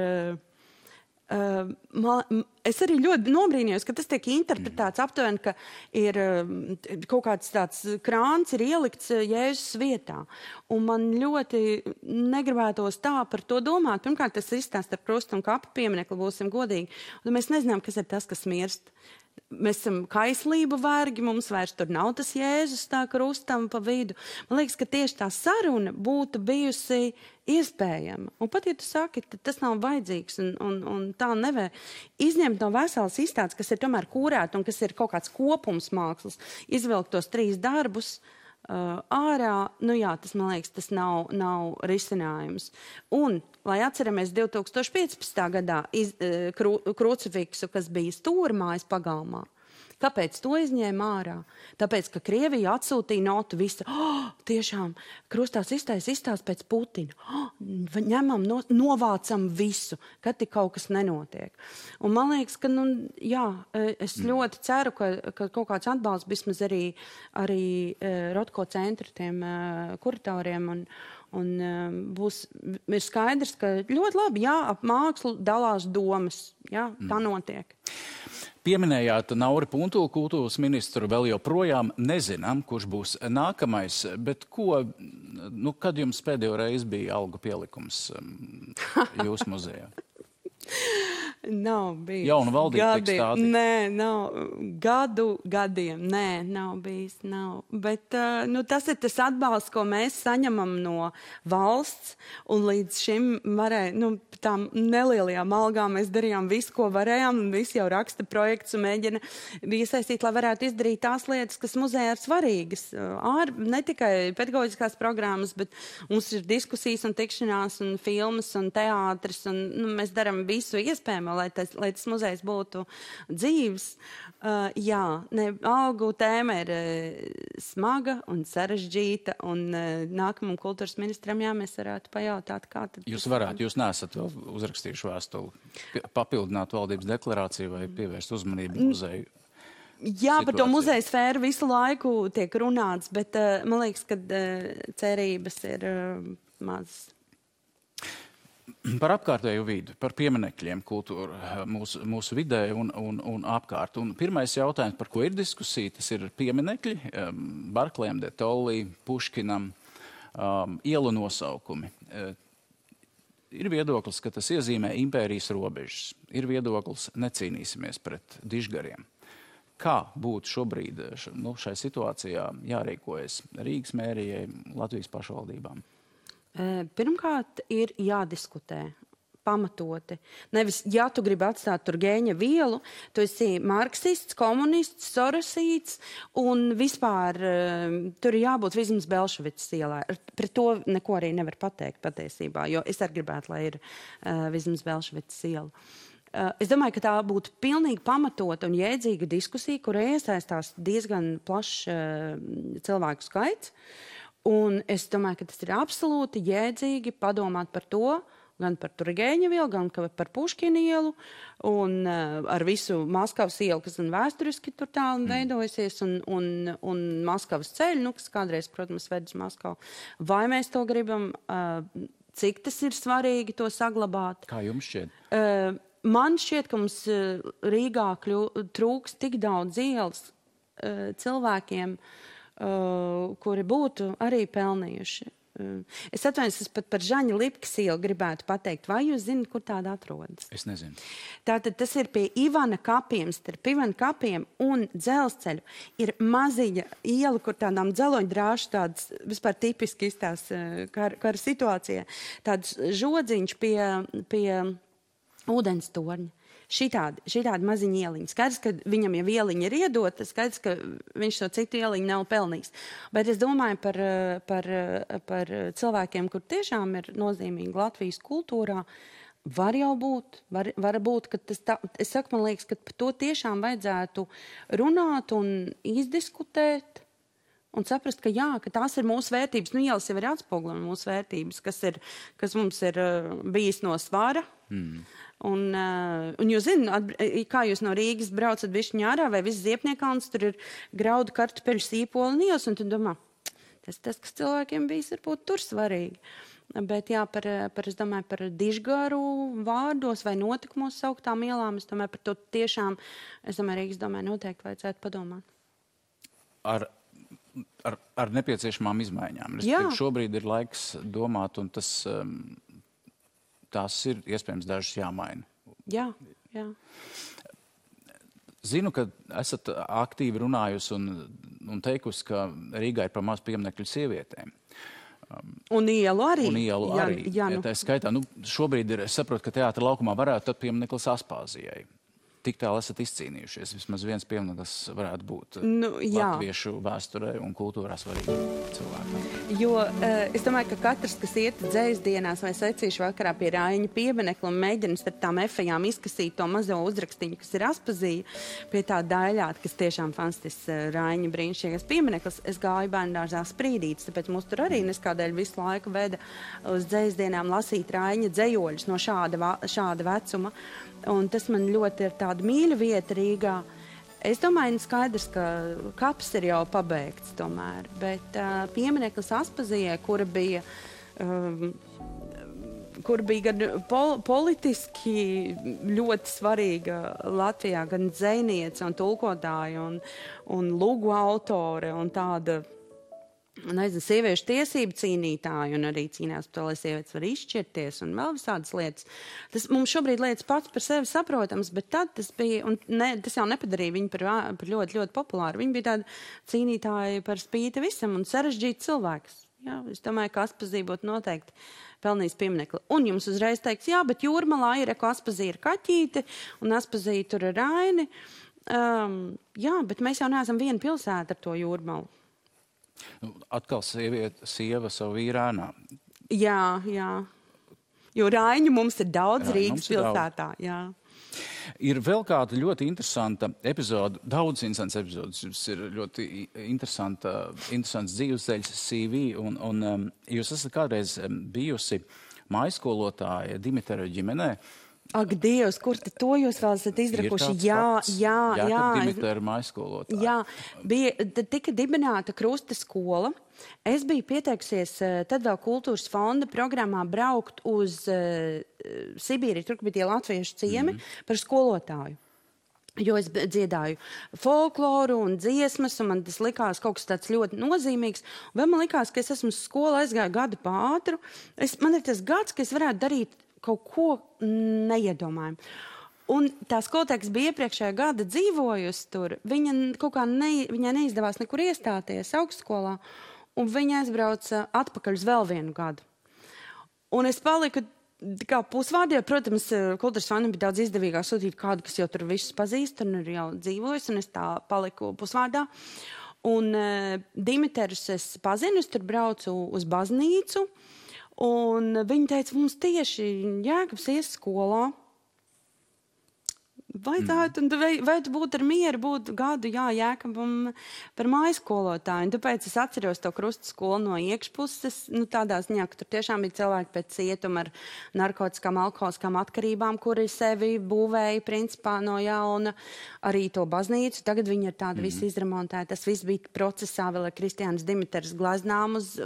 es arī ļoti nobrīnījos, ka tas tiek interpretēts aptuveni, ka ir kaut kāds tāds krāns ir ielikts Jēzus vietā. Un man ļoti negribētos tā par to domāt. Pirmkārt, tas izstāsts ar krustu un kapu pieminekli, būsim godīgi. Un mēs nezinām, kas ir tas, kas mirst. mēs esam kaislību vergi, mums vairs tur nav tas Jēzus tā krustam pa vidu. Man liekas, ka tieši tā saruna būtu bijusi iespējama. Un pat, ja tu saki, tas nav vajadzīgs un tā nevajag izņemt no veselas izstādes, kas ir tomēr kūrēta un kas ir kaut kāds kopums mākslas, izvilkt tos 3 darbus ārā, tas, man liekas, tas nav risinājums. Un, lai atceramies 2015. gadā krucifiksu, kas bija stūrmājas pagalmā, kāpēc to izņēma ārā? Tāpēc, ka Krievija atsūtīja notu visu. Tiešām, krustās izstāst pēc Putina. Ņemam, novācam visu, kad tik kaut kas nenotiek. Un man liekas, ka, es ļoti ceru, ka kaut kāds atbalsts vismaz arī Rotko centra tiem kuratoriem un ir skaidrs, ka ļoti labi, ap mākslu dalās domas. Tā notiek. Pieminējāt Nauri Puntulu, kultūras ministru, vēl joprojām nezinām, kurš būs nākamais, bet kad jums pēdējo reizi bija algu pielikums jūsu muzejā? Nav bijis. Jauna valdība tiek stādīta? Nē, nav. Gadiem. Nē, nav bijis. Nav. Bet tas ir tas atbalsts, ko mēs saņemam no valsts, un līdz šim tām nelielajām algām mēs darījām visu, ko varējām, un visi jau raksta projekts un mēģina iesaistīt, lai varētu izdarīt tās lietas, kas muzejā ir svarīgas. Ne tikai pedagoģiskās programmas, bet mums ir diskusijas un tikšanās un filmas un teātris, un mēs darām visu iespējamo, lai tas muzejs būtu dzīvs. Algu tēma ir smaga un sarežģīta, un nākamam kultūras ministram, mēs varētu pajautāt, kā tad... Jūs neesat vēl uzrakstījuši vēstuli, papildināt valdības deklarāciju vai pievērst uzmanību muzeju? Par to muzeja sfēru visu laiku tiek runāts, bet man liekas, ka cerības ir mazas. Par apkārtējo vidu, par pieminekļiem kultūra mūsu vidē un apkārt. Un pirmais jautājums, par ko ir diskusija, tas ir pieminekļi, Barklējam, de Tolly, Puškinam, ielu nosaukumi. Ir viedoklis, ka tas iezīmē impērijas robežas. Ir viedoklis, necīnīsimies pret dižgariem. Kā būtu šobrīd šai situācijā jārīkojas Rīgas mērijai, Latvijas pašvaldībām? Pirmkārt, ir jādiskutē pamatoti. Nevis, ja tu gribi atstāt tur Gēņa vielu, tu esi marksists, komunists, sorosīts, un vispār tur ir jābūt vismaz Belševicas ielā. Pret to neko arī nevar pateikt patiesībā, jo es arī gribētu, lai ir vismaz Belševicas iela. Es domāju, ka tā būtu pilnīgi pamatota un jēdzīga diskusija, kurā iesaistās diezgan plašs cilvēku skaits. Un es domāju, ka tas ir absolūti jēdzīgi padomāt par to, gan par Turgeņa vielu, gan par Puškina ielu, un ar visu Maskavas ielu, kas vēsturiski tur tālu veidojusies, un Maskavas ceļu, kas kādreiz, protams, ved uz Maskavu. Vai mēs to gribam, cik tas ir svarīgi to saglabāt? Kā jums šķiet? Man šķiet, ka mums Rīgā trūks tik daudz ielas cilvēkiem, kuri būtu arī pelnījuši. Es atvainojos, es pat par Žaņa Lipkas ielu gribētu pateikt. Vai jūs zināt, kur tāda atrodas? Es nezinu. Tātad tas ir pie Ivana kapiem, starp Ivana kapiem un dzelzceļu. Ir maziņa iela, kur tādām dzeloņdrāšu tādas vispār tipiski izstās kara situācijā. Tāds žodziņš pie ūdens torņa. Šitādi maziņi ieliņi. Skaidrs, ka viņam jau ieliņa ir iedota, skaidrs, ka viņš to citu ieliņu nav pelnījis. Bet es domāju par cilvēkiem, kur tiešām ir nozīmīgi Latvijas kultūrā, var jau būt, var būt, ka tas tā, es saku, man liekas, ka par to tiešām vajadzētu runāt un izdiskutēt un saprast, ka jā, ka tās ir mūsu vērtības. Ielas jau ir atspoguļo mūsu vērtības, kas mums ir bijis no svara. Un jūs zināt, kā jūs no Rīgas braucat bišķiņā ārā vai viss Ziepniekalns, tur ir graudu, kartupeļu, sīpoli un ielas, un tu domā, tas, kas cilvēkiem bijis, varbūt tur svarīgi. Bet jā, es domāju, par dižgaru vārdos vai notikumos sauktām ielām, es domāju, par to tiešām, Rīgas domāju, noteikti vajadzētu padomāt. Ar nepieciešamām izmaiņām. Šobrīd ir laiks domāt, un tās ir iespējams dažas jāmaina. Jā. Zinu, ka esat aktīvi runājusi un teikusi, ka Rīgā ir par maz pieminekļu sievietēm. Un ielu arī. Jā, tā skaitā. Šobrīd es saprotu, ka teātra laukumā varētu tad piemineklis Aspāzijai. Tik tālu esat izcīnījušies. Vismaz viens piemineklis varētu būt latviešu vēsturē un kultūrā svarīgi cilvēkiem. Jo es domāju, ka katrs, kas iet dzējas dienās vai secīšu vakarā pie Raiņa pieminekla un mēģina starp tām efejām izkasīt to mazo uzrakstiņu, kas ir Aspazija, pie tā daļāt, kas tiešām fantastisks Raiņa brīnišķīgais piemineklis, es gāju bērndārzā Sprīdītis, tāpēc mūs tur arī neskādēļ visu laiku veda uz dzējas dienām lasīt Raiņa dzējoļus no šāda vecuma. Un tas man ļoti ir tāda mīļa vieta Rīgā. Es domāju, skaidrs, ka kaps ir jau pabeigts tomēr, bet piemineklis Aspazijai, kura bija gan politiski ļoti svarīga Latvijā, gan dzejniece un tulkotāja un lugu autore un tāda, nezinu, sieviešu tiesību cīnītāji un arī cīnās par to, lai sievietes var izšķirties un vēl visādas lietas. Tas mums šobrīd lietas pats par sevi saprotams, bet tad tas bija, un tas jau nepadarīja viņu par ļoti, ļoti populāru. Viņi bija tādi cīnītāji par spīti visam un sarežģīti cilvēks. Jā, es domāju, ka Aspazija būtu noteikti pelnījis pieminekli. Un jums uzreiz teiks, jā, bet Jūrmalā ir, ka Aspazija ir kaķīte un Aspazija tur ir Raini. Jā, bet mēs jau neesam viena pilsēta ar to Jūrmalu. Atkal sieva savu vīrānā. Jā. Jo Raiņu mums ir daudz Rīgas pilsētā. Jā. Ir vēl kāda ļoti interesanta epizode, daudz interesants epizodes. Jums ir ļoti interesants dzīvesceļš CV, un jūs esat kādreiz bijusi mājskolotāja Dimitra ģimenē. Ak, Dievs, kur tad to jūs vēl esat izrakuši? Jā. Dimitra ir mājskolotāja. Jā, tika dibināta Krusta skola. Es biju pieteikusies tad vēl kultūras fonda programmā braukt uz Sibīriju, tur bija tie latviešu ciemi par skolotāju. Jo es dziedāju folkloru un dziesmas, un man tas likās kaut kas tāds ļoti nozīmīgs. Vēl man likās, ka es esmu uz skolu aizgāju gadu pātru. Man ir tas gads, ka es varētu darīt kaut ko neiedomājumu. Un tā skolotāja, kas bija iepriekšējā gada dzīvojusi tur, viņai neizdevās nekur iestāties augstskolā, un viņa aizbrauca atpakaļ uz vēl vienu gadu. Un es paliku kā pusvārdi, jo, protams, kultūras fondam bija daudz izdevīgāk sūtīt kādu, kas jau tur visus pazīst un ir jau dzīvojis, un es tā paliku pusvārdā. Un Dimiters es pazinu, es tur braucu uz baznīcu, un viņi teica, mums tieši Jēkabs ies skolā. Vajadzētu būt ar mieru, būt gadu, Jēkabam par mājskolotāju. Un tāpēc es atceros to Krusta skolu no iekšpuses, tādā ziņā, ka tur tiešām bija cilvēki pēc cietuma ar narkotiskām, alkoholiskām atkarībām, kuri sevi būvēja principā no jauna, arī to baznīcu. Tagad viņi ir tādi visi izremontēti. Tas viss bija procesā, vēl ar Kristiānas Dimitras glaznām uz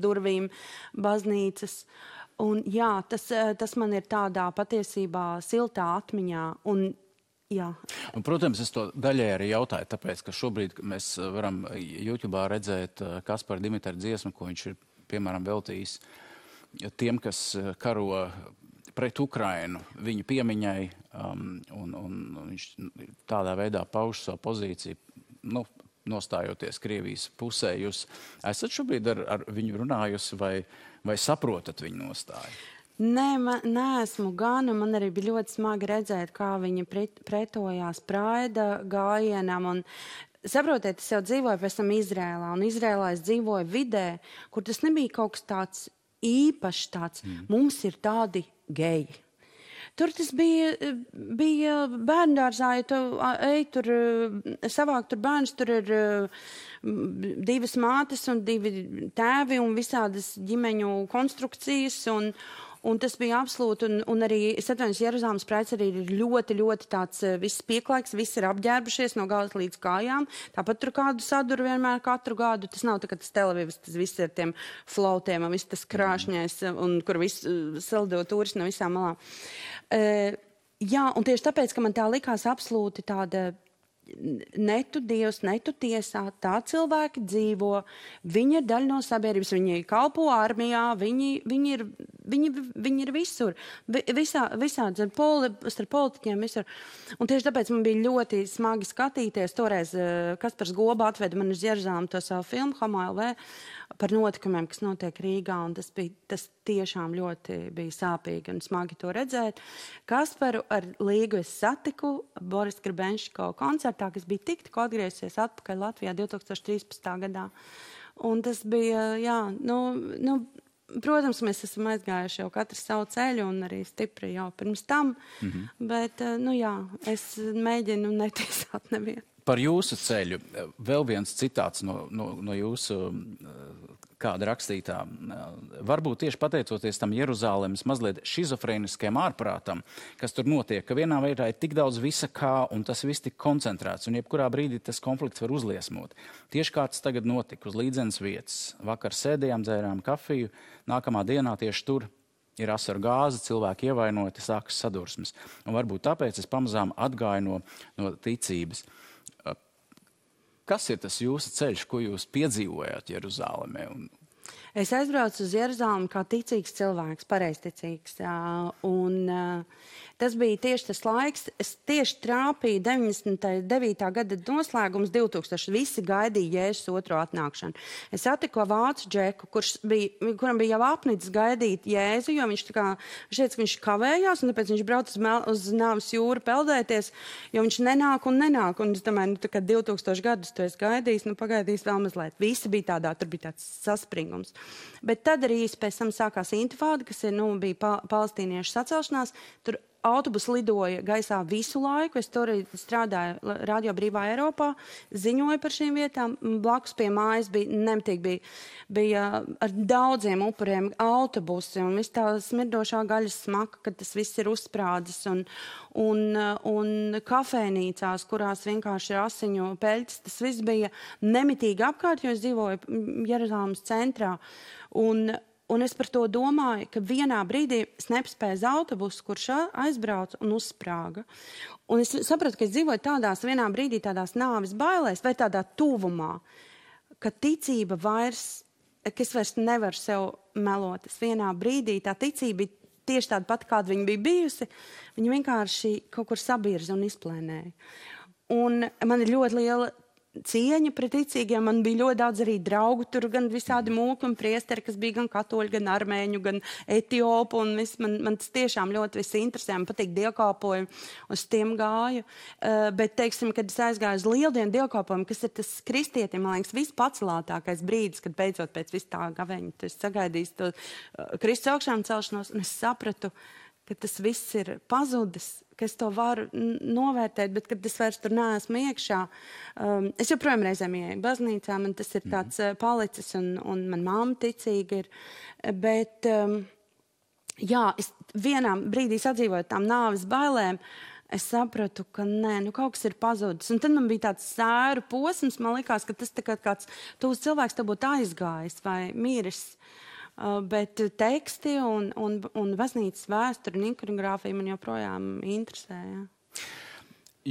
durvīm baznīcas. Un jā, tas man ir tādā patiesībā siltā atmiņā. Un, jā. Un, protams, es to daļai arī jautāju, tāpēc, ka šobrīd mēs varam YouTube'ā redzēt Kaspara Dimitra dziesmu, ko viņš ir, piemēram, veltījis tiem, kas karo pret Ukrainu, viņu piemiņai, un viņš tādā veidā pauž savu pozīciju, nostājoties Krievijas pusē. Jūs esat šobrīd ar viņu runājusi vai saprotat viņu nostāju? Nē, neesmu gan, un man arī bija ļoti smagi redzēt, kā viņa pretojās Praida gājienam. Un, saprotiet, es jau dzīvoju pēc tam Izrēlā, un Izrēlā es dzīvoju vidē, kur tas nebija kaut kas tāds īpašs, tāds, mums ir tādi geji. Tur tas bija bērndārzā, ja tu ej tur, savāk tur bērns, tur ir divas mātes un divi tēvi un visādas ģimeņu konstrukcijas, un tas bija absolūti, un arī, es atvainojos, Jeruzalemes praids arī ir ļoti, ļoti tāds viss pieklaiks, viss ir apģērbušies no galvas līdz kājām, tāpat tur kādu saduru vienmēr katru gadu, tas nav tā, ka tas Televīvs, tas viss ir tiem flautiem un viss tas krāšņais, un kur viss saldo turisti no visām malām. Jā, un tieši tāpēc, ka man tā likās absolūti tāda netu Dievs, netu tiesā, tā cilvēki dzīvo, viņi ir daļa no sabiedrības, viņi kalpo armijā, viņi ir viņi ir visur. Visādi, starp politiķiem visur. Un tieši tāpēc man bija ļoti smagi skatīties. Toreiz Kaspars Goba atveda man uz Jeruzalemi to savu filmu Homo LV par notikumiem, kas notiek Rīgā. Un tas tiešām ļoti bija sāpīgi un smagi to redzēt. Kasparu ar Līgu es satiku Boris Grebenško koncertā, kas bija tikko atgriezies atpakaļ Latvijā 2013. gadā. Un tas bija, protams, mēs esam aizgājuši jau katrs savu ceļu un arī stipri jau pirms tam, bet, es mēģinu netiesāt nevienu. Par jūsu ceļu vēl viens citāts no jūsu kāda rakstītā. Varbūt tieši pateicoties tam Jeruzālemes mazliet šizofrēniskajam ārprātam, kas tur notiek, ka vienā veidā ir tik daudz visa kā, un tas viss tik koncentrēts, un jebkurā brīdī tas konflikts var uzliesmot. Tieši kā tas tagad notika uz līdzenas vietas. Vakar sēdējām, dzērām kafiju, nākamā dienā tieši tur ir asaru gāze, cilvēki ievainoti, sākas sadursmes. Un varbūt tāpēc es pamazām atgāju no ticības. Kas ir tas jūsu ceļš, ko jūs piedzīvojāt Jeruzālemē? Es aizbraucu uz Jeruzalemi kā ticīgs cilvēks, pareizticīgs. Un tas bija tieši tas laiks. Es tieši trāpīju 99. gada noslēgums 2000. Visi gaidīja Jēzus otro atnākšanu. Es satiku vācu džeku, kuram bija jau apnicis gaidīt Jēzu, jo viņš teica, ka viņš kavējās, un tāpēc viņš brauc uz Nāves jūru peldēties, jo viņš nenāk. Un es domāju, tā kā 2000 gadus tu esi gaidījis, pagaidīs vēl mazliet. Visi bija tādā, tur bija tāds saspringums. Bet tad arī pēc tam sākās intifāda, kas bija palestīniešu sacelšanās. Tur autobusi lidoja gaisā visu laiku. Es tur strādāju Radio Brīvā Eiropā, ziņoju par šīm vietām. Blakus pie mājas bija ar daudziem upuriem autobusi un viss tā smirdošā gaļas smaka, kad tas viss ir uzsprādzis. Un kafejnīcās, kurās vienkārši ir asiņu peļķis, tas viss bija nemitīgi apkārt, jo es dzīvoju Jeruzalemes centrā. Un es par to domāju, ka vienā brīdī es nepaspēju uz autobusu, kurš aizbrauca un uzsprāga. Un es sapratu, ka es dzīvoju vienā brīdī tādās nāves bailēs vai tādā tuvumā, ka ticība ka es vairs nevaru sev melot. Es vienā brīdī tā ticība bija tieši tāda pati, kāda viņa bija bijusi. Viņa vienkārši kaut kur sabirza un izplēnēja. Un man ir ļoti liela cieņa pret ticīgiem. Man bija ļoti daudz arī draugu, tur gan visādi mūki un priesteri, kas bija gan katoļi, gan armēņu, gan etiopu, un man tas tiešām ļoti viss interesē, man patīk dievkalpojumi, uz tiem gāju. Bet, teiksim, kad es aizgāju uz lieldienu dievkalpojumu, kas ir tas kristietim, man liekas, vispacelātākais brīdis, kad beidzot pēc vis tā gaveņa, tu esi sagaidījis to Kristus augšām celšanos, un es sapratu, ka tas viss ir pazudis, ka es to varu novērtēt, bet kad es vairs tur neesmu iekšā. Es joprojām reizēm ieeju baznīcā, man tas ir tāds palicis, un man mamma ticīga ir. Bet, es vienā brīdī sadzīvoju tām nāves bailēm, es sapratu, ka kaut kas ir pazudis. Un tad man bija tāds sēru posms, man likās, ka tas kāds tuvs cilvēks te būtu aizgājis vai miris. Bet teksti un baznīcas vēsture un ikonogrāfija man joprojām interesē. Ja.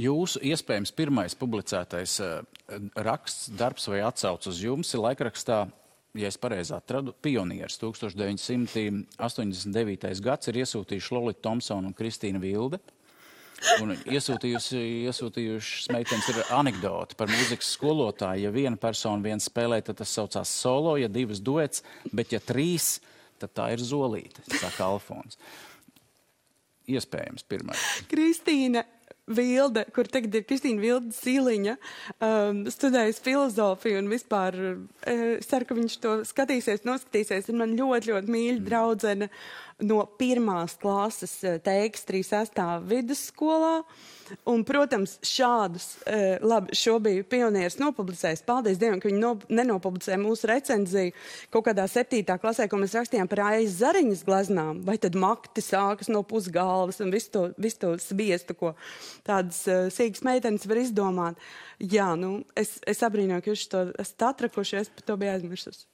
Jūsu iespējams pirmais publicētais raksts, darbs vai atsauc uz jums ir laikrakstā, ja es pareizi atradu, Pionieris. 1989. gads ir iesūtījuši Lolita Thompsona un Kristīna Vilde. Un iesūtījuši meitenes ir anekdoti par mūzikas skolotāju. Ja viena persona viens spēlē, tad tas saucās solo, ja divas duets, bet ja trīs, tad tā ir zolīte, saka Alfons. Iespējams pirmais. Kristīna Vilde, kur tagad ir Kristīna Vilde Sīliņa, studējas filozofiju un vispār ceru, ka viņš to noskatīsies. Ir man ļoti, ļoti mīļa draudzene no 1. klases teiks 36. vidusskolā. Un, protams, šādus, šo bija Pionieris nopublicējis. Paldies Dievam, ka viņi nenopublicēja mūsu recenziju kaut kādā 7. klasē, ko mēs rakstījām par Aijas Zariņas gleznām. Vai tad makti sākas no pusgalvas un visu to sviestu, ko tādas sīgas meitenes var izdomāt. Jā, es abrīnoju, ka jūs to esat atrakuši, es par to biju aizmirsus.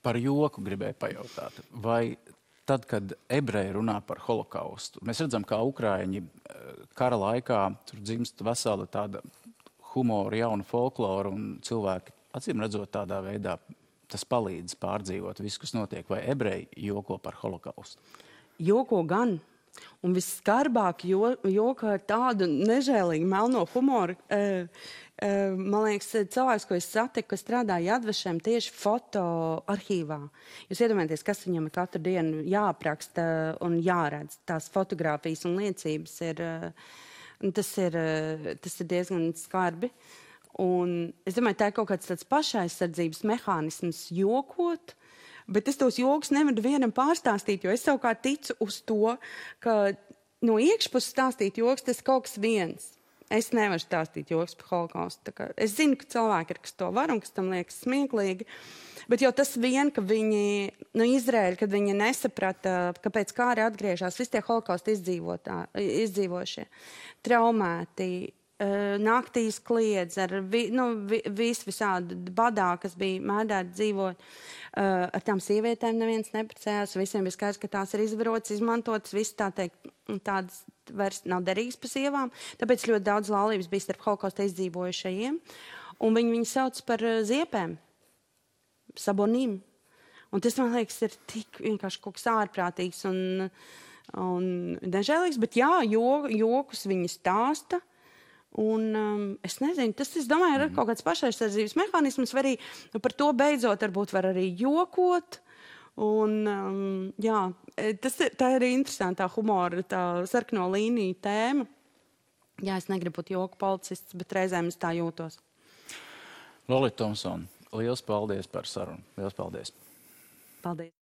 Par joku gribēju pajautāt. Vai tad, kad ebreji runā par holokaustu, mēs redzam, kā ukraiņi kara laikā tur dzimst vesela tāda humora, jauna folklora un cilvēki, acīm redzot, tādā veidā tas palīdz pārdzīvot visu, kas notiek, vai ebreji joko par holokaustu? Joko gan. Un visskarbāk joka ar tādu nežēlīgu melno humoru. Man liekas, cilvēks, ko es satiku, kas strādā Jadvešem tieši fotoarhīvā. Jūs iedomājaties, kas viņam ir katru dienu jāapraksta un jāredz. Tās fotogrāfijas un liecības tas ir diezgan skarbi. Un es domāju, tā ir kaut kāds tāds pašaizsardzības mehānisms jokot, bet es tos joks nevaru vienam pārstāstīt, jo es savukārt ticu uz to, ka no iekšpuses stāstīt joks, tas kaut kas viens. Es nevaru stāstīt joks par holokaustu. Es zinu, ka cilvēki ir, kas to var un kas tam liekas smieklīgi, bet jau tas vien, ka viņi, Izraēļi, kad viņi nesaprata, kāpēc kāri atgriežās, visi tie holokaustu izdzīvošie, traumēti, naktīs kliedz ar visādi badā, kas bija mēdēti dzīvot. Ar tām sievietēm neviens neprecējās, visiem bija skaidrs, ka tās ir izvarotas, izmantotas, viss tā teikt, tādas vairs nav derīgas pa sievām. Tāpēc ļoti daudz laulības bija starp holokausta izdzīvojušajiem. Un viņi sauc par ziepēm, sabonīm. Un tas, man liekas, ir tik vienkārši kaut kas ārprātīgs un nežēlīgs, bet jā, jokus viņi stāsta. Un es nezinu, tas, es domāju, ir kaut kāds pašaizsardzības mehānisms, vai arī par to beidzot varbūt var arī jokot. Un jā, tā ir interesantā humora, tā sarkano līniju tēma. Jā, es negribu būt joku policists, bet reizēm es tā jūtos. Lolita Thompsone, liels paldies par sarunu. Liels paldies. Paldies.